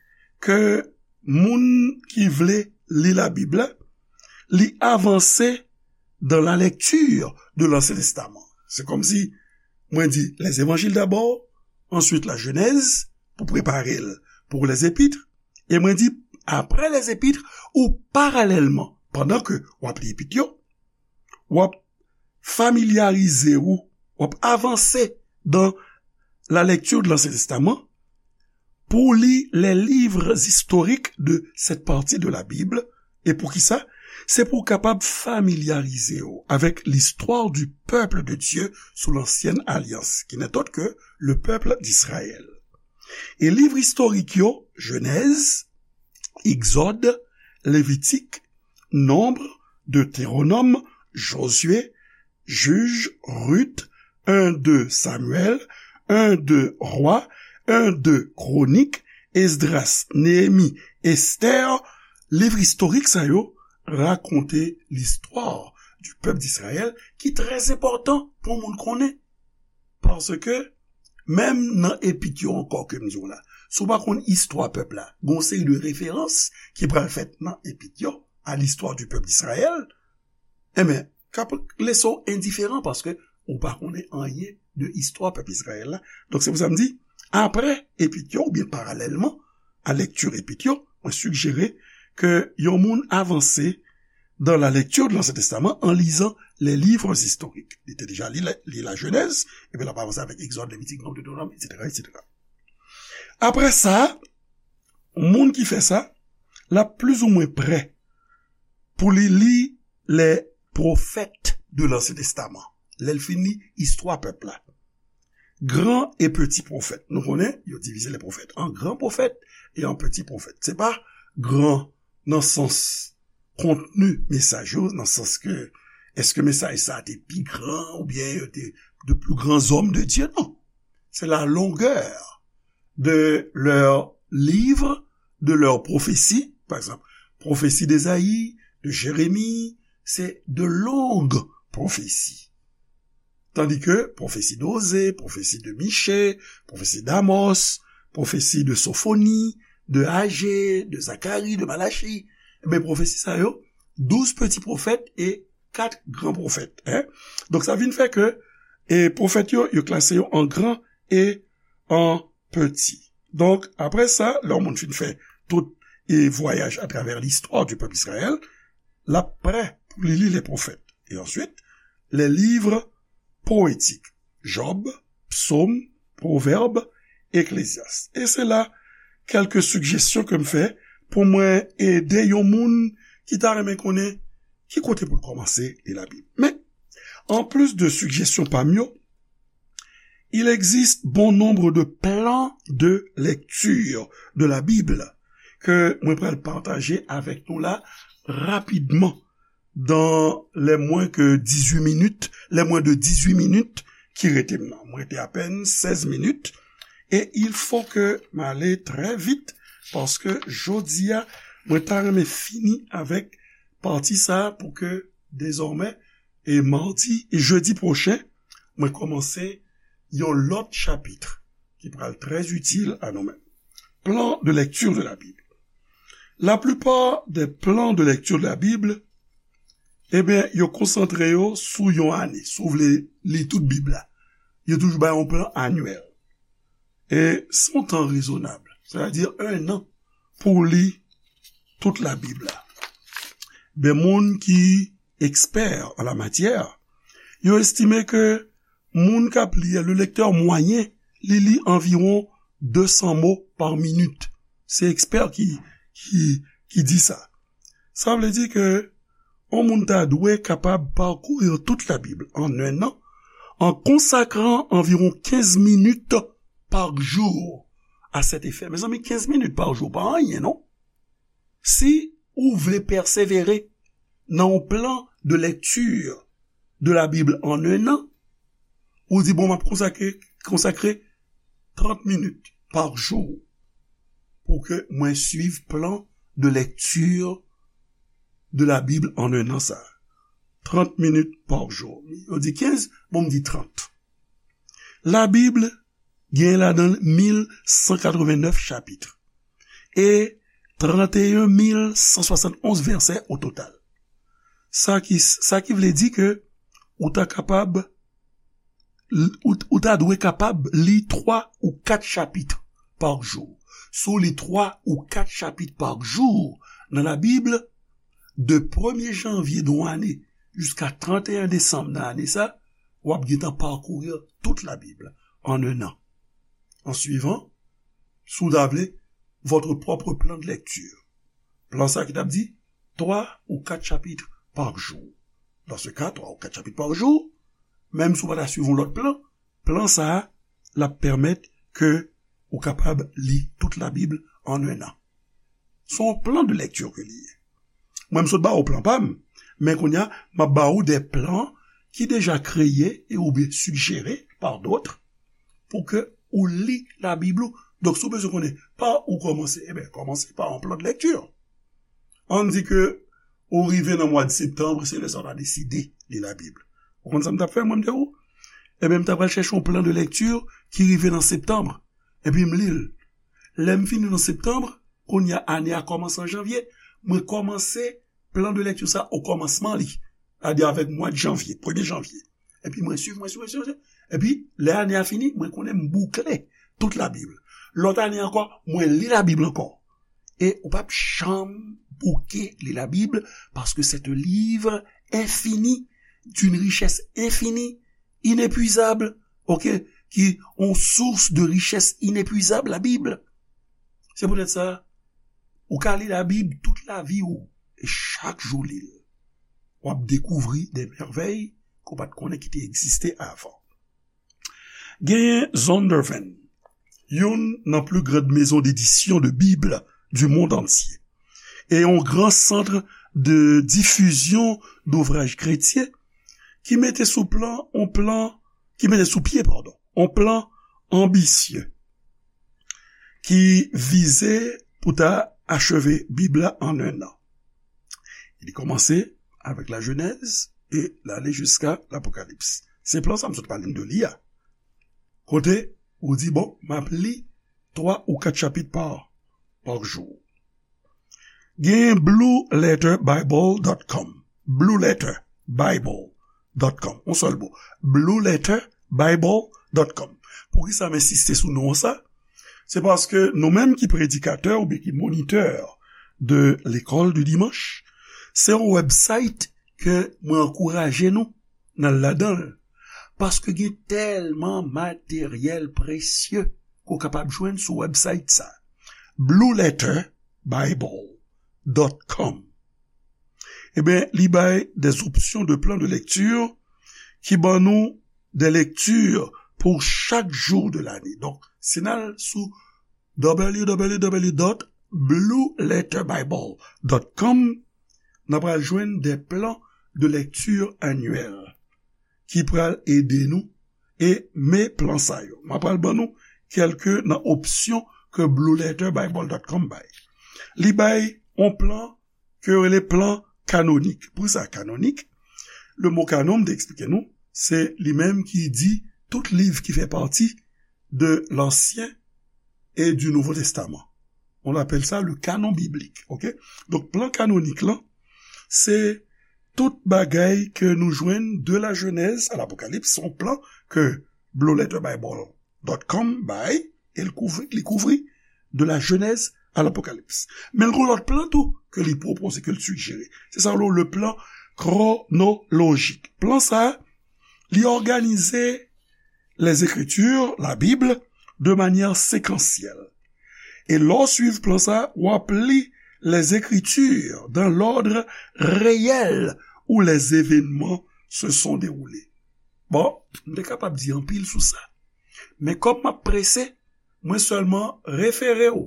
ke moun ki vle li Labib la, li avanse dans la lecture de l'Ancien Testament. Se kòmsi mwen di les évangiles d'abord, ensuite la Genèse, pou prepare l pou les épîtres, e mwen di, apre les épîtres, ou paralèlman, pandan ke w ap li epit yo, w ap familyarize ou, w ap avanse dans la lecture de l'Ancien Testament pou li les livres historiques de cette partie de la Bible. E poukisa? Se pou w kapab familyarize w avec l'histoire du peuple de Dieu sous l'ancienne alliance, qui n'est autre que le peuple d'Israël. E liv istorik yo, Genèse, Egzòd, Levitik, Nonb, Detewonòm, Jozye, Jij, Rit, en, de Samyèl, en, de Rwa, en, de Kwonik, Esdras, Neyemi, Estè, liv istorik sa yo rakonte listwa di pèp Dizrayèl ki trè enpòtan pou moun konnen. Paske, menm nan epit yo ankò ke m di w la, si w pa konn istwa pèp la, gen yon seri de referans ki pral fèt nan epit yo, à l'histoire du peuple d'Israël, enben, k ap lese w endiferan paske ou pa konnen anyen de istwa pèp Izrayèl la. Donk, se pou sa m di, apre epit yo, oubyen paralèlman a lekti epit yo, mwen sijere ke yon moun avanse dans la lecture de l'Ancien Testament en lisant les livres historiques. Li te deja li, li Lajenèz, epi l ap avanse avèk Egzòd, Levitik, Nonb, Detewonòm, etsetera, etsetera. Apre sa, moun ki fè sa, l ap plizoumwen prè pou li li les prophètes de l'Ancien Testament. Lè l fin li istwa pèp la. Gran e peti pwofèt. Nou konnen, yo divize lè pwofèt an gran pwofèt e an peti pwofèt. Se pa gran nan sans kontni mesaj yo, nan sans ke èske mesaj sa a te pi gran oubyen yo te de plus grands hommes de Dieu, non. C'est la longueur de leurs livres, de leurs prophéties. Pa egzanp, pwofesi d'Ezayi, de Jeremi, se de long pwofesi. Tandis que pwofesi de Oze, pwofesi de Miche, pwofesi d'Amos, pwofesi de Sofoni, de Aje, de Zakari, de Malachi, enben, pwofesi sa yo, douz peti pwofèt e kat gran pwofèt, en. Donk, sa vin fè ke, e, pwofèt yo, yo klase yo an gran e an peti. Donk, apre sa, lè yon moun fin fè tout, e, vwayaj atravè listwa di pèp Izrayèl, l ap prè pou li li lè pwofèt. E answit, les livres poétiques, Job, Psaume, Pwovèb, Eklezyas. E se la kèlke sijesyon ke m fè pou mwen ede yon moun ki ta renmen konnen ki kote pou l kòmanse li Labib. Men, anplis de sijesyon pa m yo, il existe bon nombre de plans de lecture de la Bible ke mwen pral pataje avèk nou la rapidman dans les moins que dix-huit minutes, les moins de dix-huit minutes ki rete m nan. Mwen rete apèn sèz minit. E il faut que m ale trè vit, paske jodi a, mwen ta renmen fini avèk pati sa a pou ke dezòmè, e madi e jedi pwochen, mwen kòmanse yon lòt chapit ki pral trè itil a nou menm. Plan de lecture de la Bible. La plupart des plans de lecture de la Bible, ebyen, yo konsantre yo sou yon ane. Si w vle li tout Bib la, yo toujou bay yon plan anyèl. E se yon tan rezonab, sètadi en an pou li tout Labib la. Ben, moun ki ekspè an la matyè, yo estime ke moun k ap li a, le lecteur moyen, li li anviwon de san mo pa minit. Se ekspè ki, ki, ki di sa. Sa vle di ke yon moun ta dwe kapab parcourir toute la Bible en un an, en consacrant environ quinze minutes par jour à cet effet. Mezanmi, kenz minit pa jou pa anyen, non? Si ou vle pèsevere nan yon plan de lecture de la Bible en un an, ou di, bon, m ap konsakre, konsakre trant minit pa jou pou ke mwen swiv plan de lecture de la Bible en un an sa. Trant minit pa jou. Yo di kenz, bon, m di trant. Labib gen ladan l mil san katreven nèf chapit e tranteyen mil san swasantonz vèsè o total. Sa ki, sa ki vle di ke ou ta kapab, ou, ou ta dwe kapab li twa ou kat chapit pa jou. Si w li twa ou kat chapit pa jou nan Labib, de premye janvye de yon ane jiska tranteyen desanm nan ane sa, w ap gentan parcourir toute la Bible en un an, en suivant, si w ta vle, votre propre plan de lecture. Plan sa ki t ap di twa ou kat chapit pa jou. Dans ce cas, twa ou kat chapit pa jou, menm si w pa ta swiv yon lòt plan, plan sa a, l ap pèmèt ke ou kapab li tout Labib en un an. Se yon plan de lecture ke li ye. Mwen, m sot ba ou plan pa m, men kounye a, m ap ba ou de plan ki deja kreye e oubyen sigjere par d'autres pou ke ou li Labib ou. Donk, si w bezwen konnen pa ou kòmanse, ebyen, kòmanse pa yon plan de lecture. Ann di ke ou rive nan mwa de septanm, se lè sa w ta deside li Labib. Ou konn sa m t ap fè, mwen, m te ou? Ebyen, m ta pral chèche yon plan de lecture ki rive nan septanm, epi m li l. Lè m fini nan septanm, kounye a, ane a kòmanse an janvye, mwen kòmanse plan de lecture sa okòmansman li, sètadi avèk mwa de janvye, premye janvye. Epi mwen swiv, mwen swiv, mwen swiv, epi lè ane a fini, mwen konnen m boukle tout Labib. Lòt ane ankò, mwen li Labib ankò. E ou p ap janm bouke li Labib, paske c'est un livre infini, d'une richesse infinie, inépuisable, ok, ki yon source de richesse inépuisable, Labib. Se poutèt sa, ou ka li Labib tout lavi ou, e chak jou li l, w ap dekouvri de mèvèy ke w pa t konnen ki te egziste avan. Genyen Zondervan, youn nan pli grand maison d'édition de Bible du monde entier, e yon gran sant de difizyon d'ouvraj kretyen ki mete sou plan, on plan, ki mete sou pye, padon, on plan anbisye ki vize pou ta acheve Bib la an en an. Li kòmanse avèk la Jenèz e l ale jiska Lapokalips. Se plan sa m sot pale n de li a. Kote ou di, bon, m ap li twa ou kat chapit pa, pa jou. Gen blue letter bible dot com. Blue letter bible dot com. Yon sèl mo. Blue letter bible dot com. Poukisa m ensiste sou non sa? Se paske nou menm ki predikatè oubyen ki monitè de lekòl de dimanch, se yon website ke mwen ankouraje nou n al ladan l. Paske gen tèlman materyèl presye ke w kapab jwenn sou website sa. Blue letter bible dot com. Ebyen, li bay des options de plan de lecture ki ban nou des lectures pour chaque jour de l'année. Donk, si n al sou w w w dot blue letter bible dot com, n ap pral jwenn des plans de lecture annuels ki pral ede nou e men plan sa yo. M ap pral ban nou kèlke nan opsyon ke blue letter bible dot com bay. Li bay yon plan ke yo rele plan kanonik. Pou sa kanonik? Le mo kanon, m te eksplike nou, se li menm ki di tout liv ki fè pati de l'Ancien et du Nouveau Testament. On appelle ça le canon biblique, ok? Donk, plan kanonik lan, se tout bagay ke nou jwenn de la Genèse à l'Apocalypse, se yon plan ke blue letter bible dot com bay, e l kouvri, li kouvri de la Genèse à l'Apocalypse. Men l gon lòt plan tou ke li pwopoze, ke l sigjere. Se sa yo rele le plan chronologique. Plan sa, li òganize les Écritures, la Bible, de manière séquentielle. E lè w swiv plan sa, w ap li les Écritures dans l'ordre réel où les événements se sont déroulés. Bon, m te kapab di anpil sou sa. Men kòm m ap prese, mwen sèlman refere w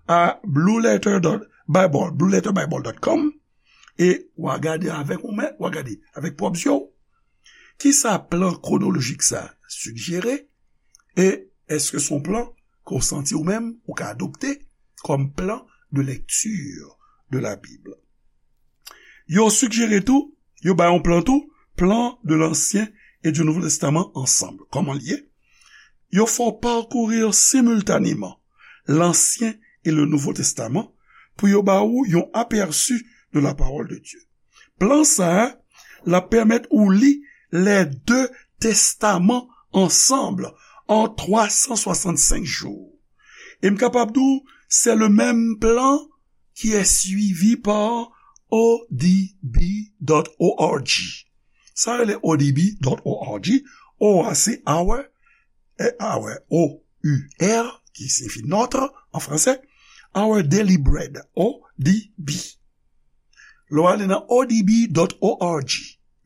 a blue letter dot bible, blue letter bible dot com, e w a gade avèk ou menm, w a gade avèk pwòp zye w. Kisa plan kwonolojik sa sigjere? E èske se yon plan ke w santi ou menm ou ka adopte kòm plan de lecture de la Bible? Yo sigjere tou, yo bay yon plan tou, plan de l'Ancien et du Nouveau Testament ensemble. Kòman l ye? Yo fè w parcourir simultanément l'Ancien et le Nouveau Testament pou yo ba ou yon aperçu de la parole de Dieu. Plan sa a, l ap pèmèt ou li les deux testaments ensemble en trois cent soixante-cinq jours. E m kapab di w, c'est le même plan qui est suivi par O D B dot org. Sa rele O D B dot org, O a se our, e our, O U R, ki siyifi notre an fransè, our daily bread, O D B. Lè w ale nan O D B dot org,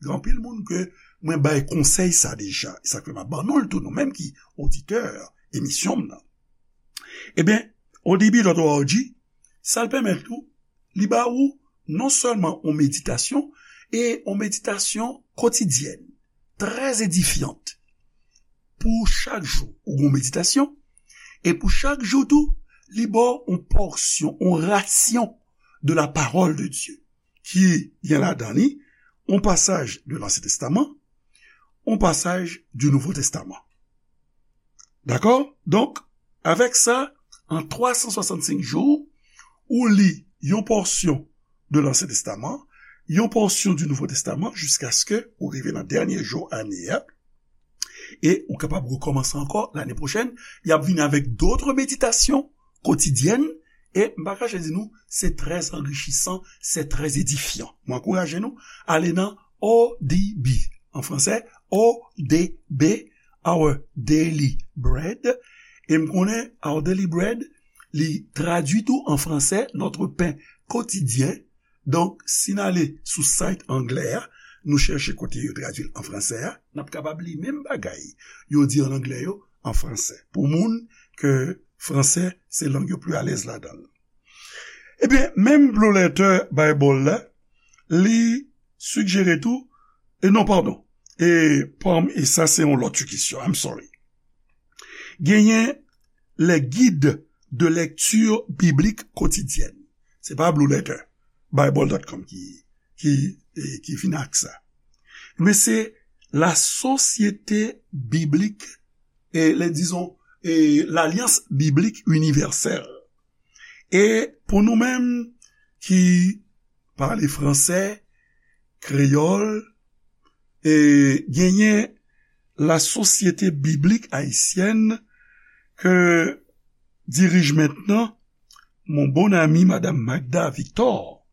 gen anpil moun ke mwen bay konsèy sa deja. E sa k fè m ap ban nou l tou, nou menm ki oditè emisyon m nan. Ebyen, O D B dot org, Sa l pèmèt tou, li ba ou non sèlman yon meditasyon, e yon meditasyon kotidyèn, trè edifyant. Pou chak jou, ou gen yon meditasyon, e pou chak jou tou, li ba w yon pòsyon, yon rasyon de la parole de Dieu, ki gen ladan li yon pasaj de Lansyen Testaman, yon pasaj du Nouveau Testament. Dakò? Donk, avèk sa, an twa san swasannsenk jou, ou li yon pòsyon de Lansyen Testaman, yon pòsyon du Nouveau Testament, jiskaske ou rive nan dènye jou ane a, e ou kapab rekòmanse ankò lane pwochèn. Y ap vini avèk dòt meditations quotidiennes, e m pa kache di nou, se trè anrichisan, se trè edifyan. Mwen ankouraje nou, ale nan O D B, an fransè, O D B, Our Daily Bread. E m konnen Our Daily Bread, li tradui tou an fransè, Notre pain quotidien. Donk, si n ale sou site anglè a, nou chèche kote yo tradui l an fransè a, n ap kapab li menm bagay yo di an anglè yo an fransè. Pou moun ke fransè se lang yo pli alèz ladan l. Ebyen, menm Blue Letter Bible la, li sijere tou, e non, padon, e, pam, e sa se yon lòt kesyon, I'm sorry. Genyen les guides de lecture biblique quotidienne. Se pa Blue Letter Bible dot com ki, ki, e, ki vin ak sa. Men se la Société Biblique, e, les, disons, e, l'Alliance Biblique Universelle. E pou nou menm ki pale fransè, kreyòl, e genyen la Société Biblique Haïtienne ke dirije mentnan mon bon ami Madame Magda Victor.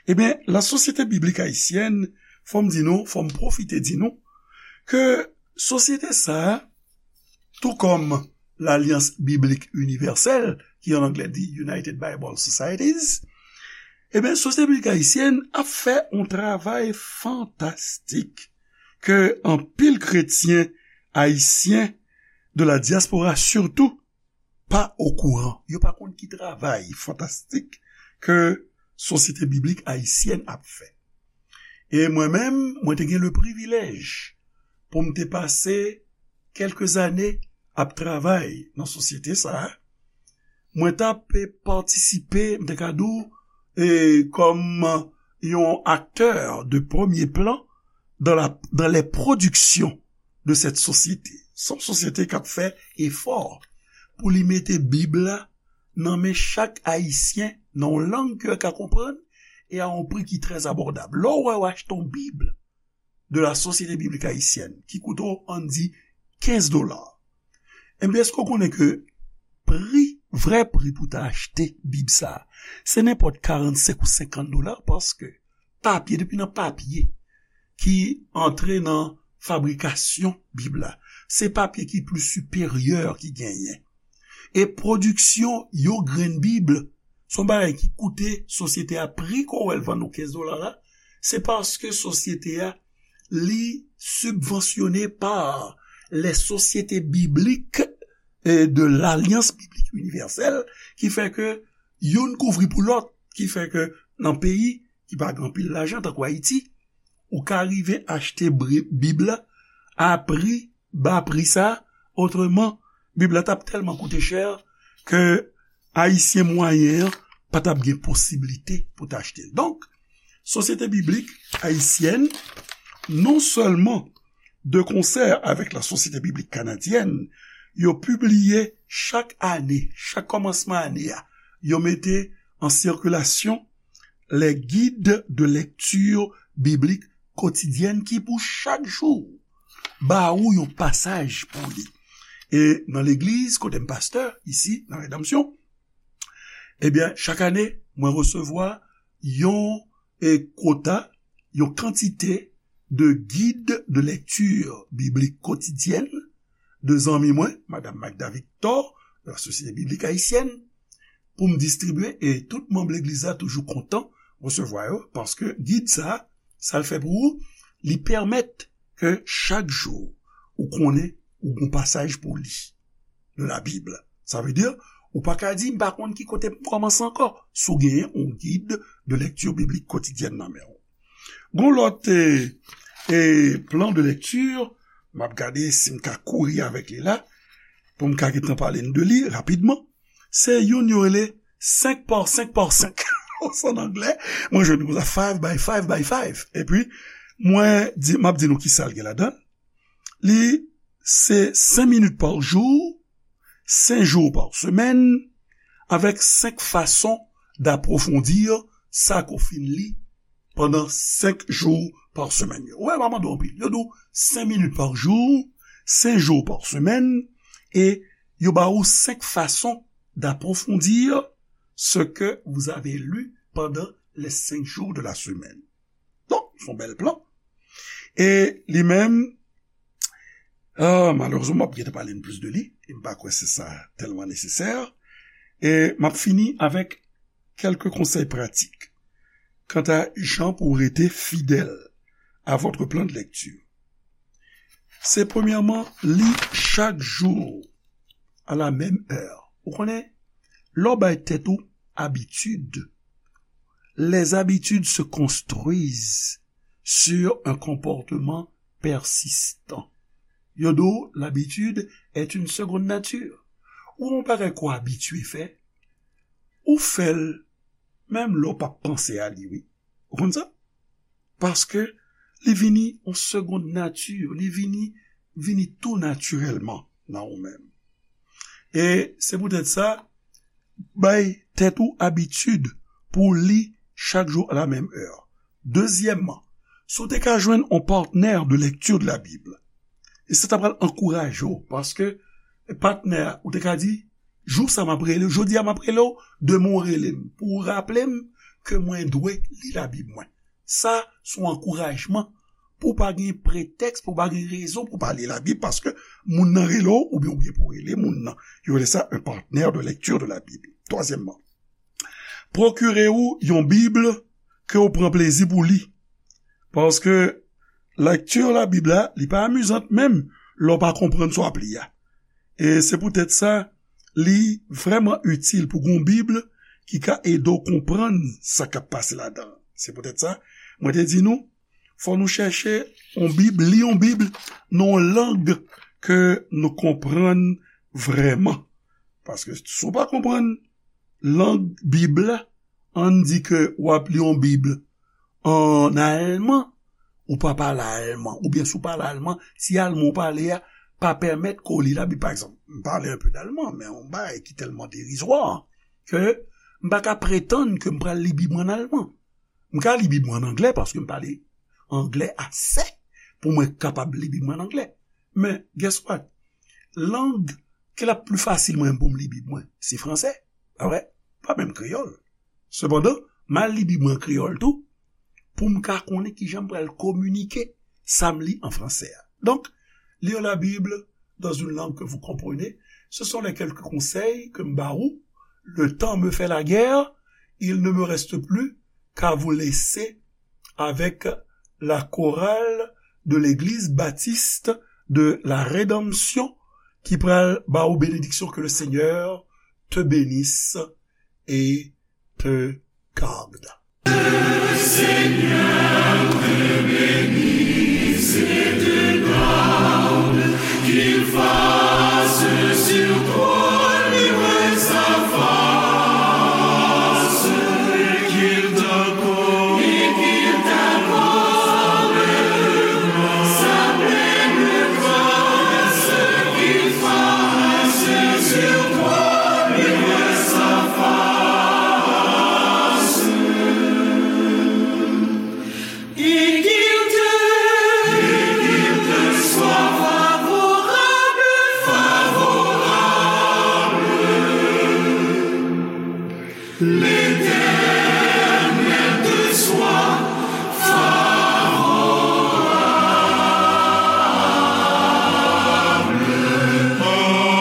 Ebyen, la Société Biblique Haïtienne, fò m di nou, fò m pwofite di nou, ke sosyete sa a, tou kòm l'Alliance Biblique Universelle, ki an anglè di United Bible Societies, ebyen, Sosyete Biblik Ayisyèn ap fè yon travay fantastik ke anpil kretyen ayisyen de la diaspora sitou pa okouran. Yo pa konn ki travay fantastik ke Sosyete Biblik Ayisyèn ap fè. E mwen menm, mwen te gen le privilèj pou m te pase kèlke zane ap travay nan sosyete sa a. Mwen t ap patisipe, m te ka di w, e, kòm yon aktè de premye plan dans la, dans les productions de cette société. Se yon sosyete k ap fè efò pou li mete Bib la nan men chak Ayisyen, nan yon lang ke yo ka konprann, e a yon pri ki trè abòdab. Lè w wè w achte yon Bib de la Société Biblique Haïtienne, ki koute w, ann di, kenz dola, ebyen, èske w konnen ke pri, vrè pri pou ta achte Bib sa a, se nenpòt karannsenk ou senkant dola, paske papye, depi nan papye ki antre nan fabrikasyon Bib la, se papye ki pli siperyè ki genyen. E pwodiksyon yon grenn Bib, se yon bagay ki koute sosyete a pri ke w wè l vann ou kenz dola la, se paske sosyete a, li sibvansyone pa les sociétés bibliques, e, de l'Alliance Biblique Universelle, ki fè ke youn kouvri pou lòt, ki fè ke nan peyi ki pa gen anpil lajan, tankou Ayiti, ou ka rive achte bri-, Bib la a pri, ba pri sa, otreman, Bib la t ap tèlman koute chè ke Ayisyen mwayen an pa t ap gen posiblite pou t achte l. Donk, Sosyete Biblik Ayisyèn, non sèlman de konsè avèk la Sosyete Biblik Kanadyèn, yo pibliye chak ane, chak kòmansman ane a, yo mete an sikilasyon les guides de lecture biblique quotidienne ki pou chak jou ba ou yon pasaj pou li. E nan legliz, kote m pastè, isi, nan Redanmsyon, ebyen, chak ane, mwen resevwa yon, e, kwota, yon kantite de guide de lecture biblique quotidienne de zanmi mwen, Madam Magda Victor, de la Sosyete Biblik Ayisyèn, pou m distribye, e tout manm legliz la toujou kontan resevwa yo, paske gid sa, sa l fè pou ou, li pèmèt ke chak jou ou konnen ou gon pasaj pou li de la Bib. Sa vle di, Ou pa ka di, "M pa konn ki kote pou m kòmanse ankò." Si w genyen yon gid de lèkti biblik kotidyèn nan men w. Gon lòt, e, e, plan de lèkti, m ap gade si m ka kouri avèk li la, pou m ka gentan pale n de li rapidman. Se youn yo rele senk pa senk pa senk. Sa an anglè, mwen jwenn konsa five by five by five. Epi, mwen di, m ap di nou ki sa l gen ladan l. Li se cinq minutes par jour, cinq jours par semaine, avec cinq façons d'approfondir sa ke w fin li pandan senk jou pa semèn yo. Ou wè, m ap mande w anpil. Yo di w cinq minutes par jour, cinq jours par semaine, e yo ba ou senk fason d'approfondir ce que vous avez lu pendant les cinq jours de la semaine. Donk, se yon bèl plan. E li menm, ah, malerezman, m ap gentan pale n plis de li, e m pa kwè se sa tèlman nesesè. E m ap fini avèk kèlke konsèy pratik kanta jan pou w rete fidèl a votre plan de lecture. Se premyèman, li chak jou à la même heure. Ou konnen, lè w bay tèt ou abitid, les habitudes se construisent sur un comportement persistant. Yo di w, l'habitude est une seconde nature. Ou yon bagay ke w abitye fè, ou fè l, menm lè w p ap panse a li, wi. Ou konn sa? Paske li vini yon seconde nature, li vini, vini tou natirèlman nan ou menm. E se poutèt sa, bay tèt ou abitid pou w li chak jou à la même heure. Dezyèmman, si w te ka jwenn yon patnè de lecture de la Bible, e sa ta pral ankouraje w, paske patnè a, ou te ka di, "Jou sa m ap rele w, jodi a m ap rele w, demen w rele m, pou w raple m ke mwen dwe li Labib mwen." Sa se yon ankourajman pou w pa gen pretèks, pou w pa gen rezon pou w pa li Labib, paske moun nan rele w, oubyen, oubyen pou w rele moun nan. Yo rele sa un partenaire de lecture de la Bible. Twazyèmman, pwokire w yon Bib ke w pran plezi pou li. Paske lekti Labib la, li pa amizant menm lè w pa konprann sa w ap li a. E se poutèt sa, li vrèman itil pou gen yon Bib ki ka ede w konprann sa k ap pase ladan l. Se poutèt sa, mwen te di nou, fò nou chèche yon Bib, li yon Bib nan yon lang ke nou konprann vrèman. Paske si w pa konprann lang Bib la, ann di ke w ap li yon Bib an alman, ou pa pale alman, oubyen si w pale alman, ti alman w pale a pa pèmèt ke w li Labib. Pa egzanp, m pale un peu d'allemand, men yon bagay ki tèlman derizwa, ke m pa ka pretann ke m pral li Bib mwen an alman. M ka li Bib mwen an anglè paske m pale anglè ase pou mwen kapab li Bib mwen an anglè. Men, guess what? Lang ke l ap pli fasil mwen pou m li Bib mwen, se fransè. Pa vre? Pa menm kreyòl. Sepandan, m al li Bib mwen an kreyòl tou, pou m ka konnen kijan m pral kominike sa m li an fransè a. Donk, lire la Bible dans une langue que vous comprenez, ce sont les quelques conseils que m ba ou. Le temps me fait la guerre, il ne me reste plus qu'à vous laisser avec la chorale de l'église baptiste de la Rédemption ki pral ba ou bénédiction. Que le Seigneur te bénisse et te garde. Seigneur te bénisse et te garde, qu'il fasse sur toi luire sa face, et qu'il t'accorde, et qu'il t'accorde sa pleine grâce, qu'il fasse sur toi luire sa face. Et qu'il te, et qu'il te soit favorable, favorable.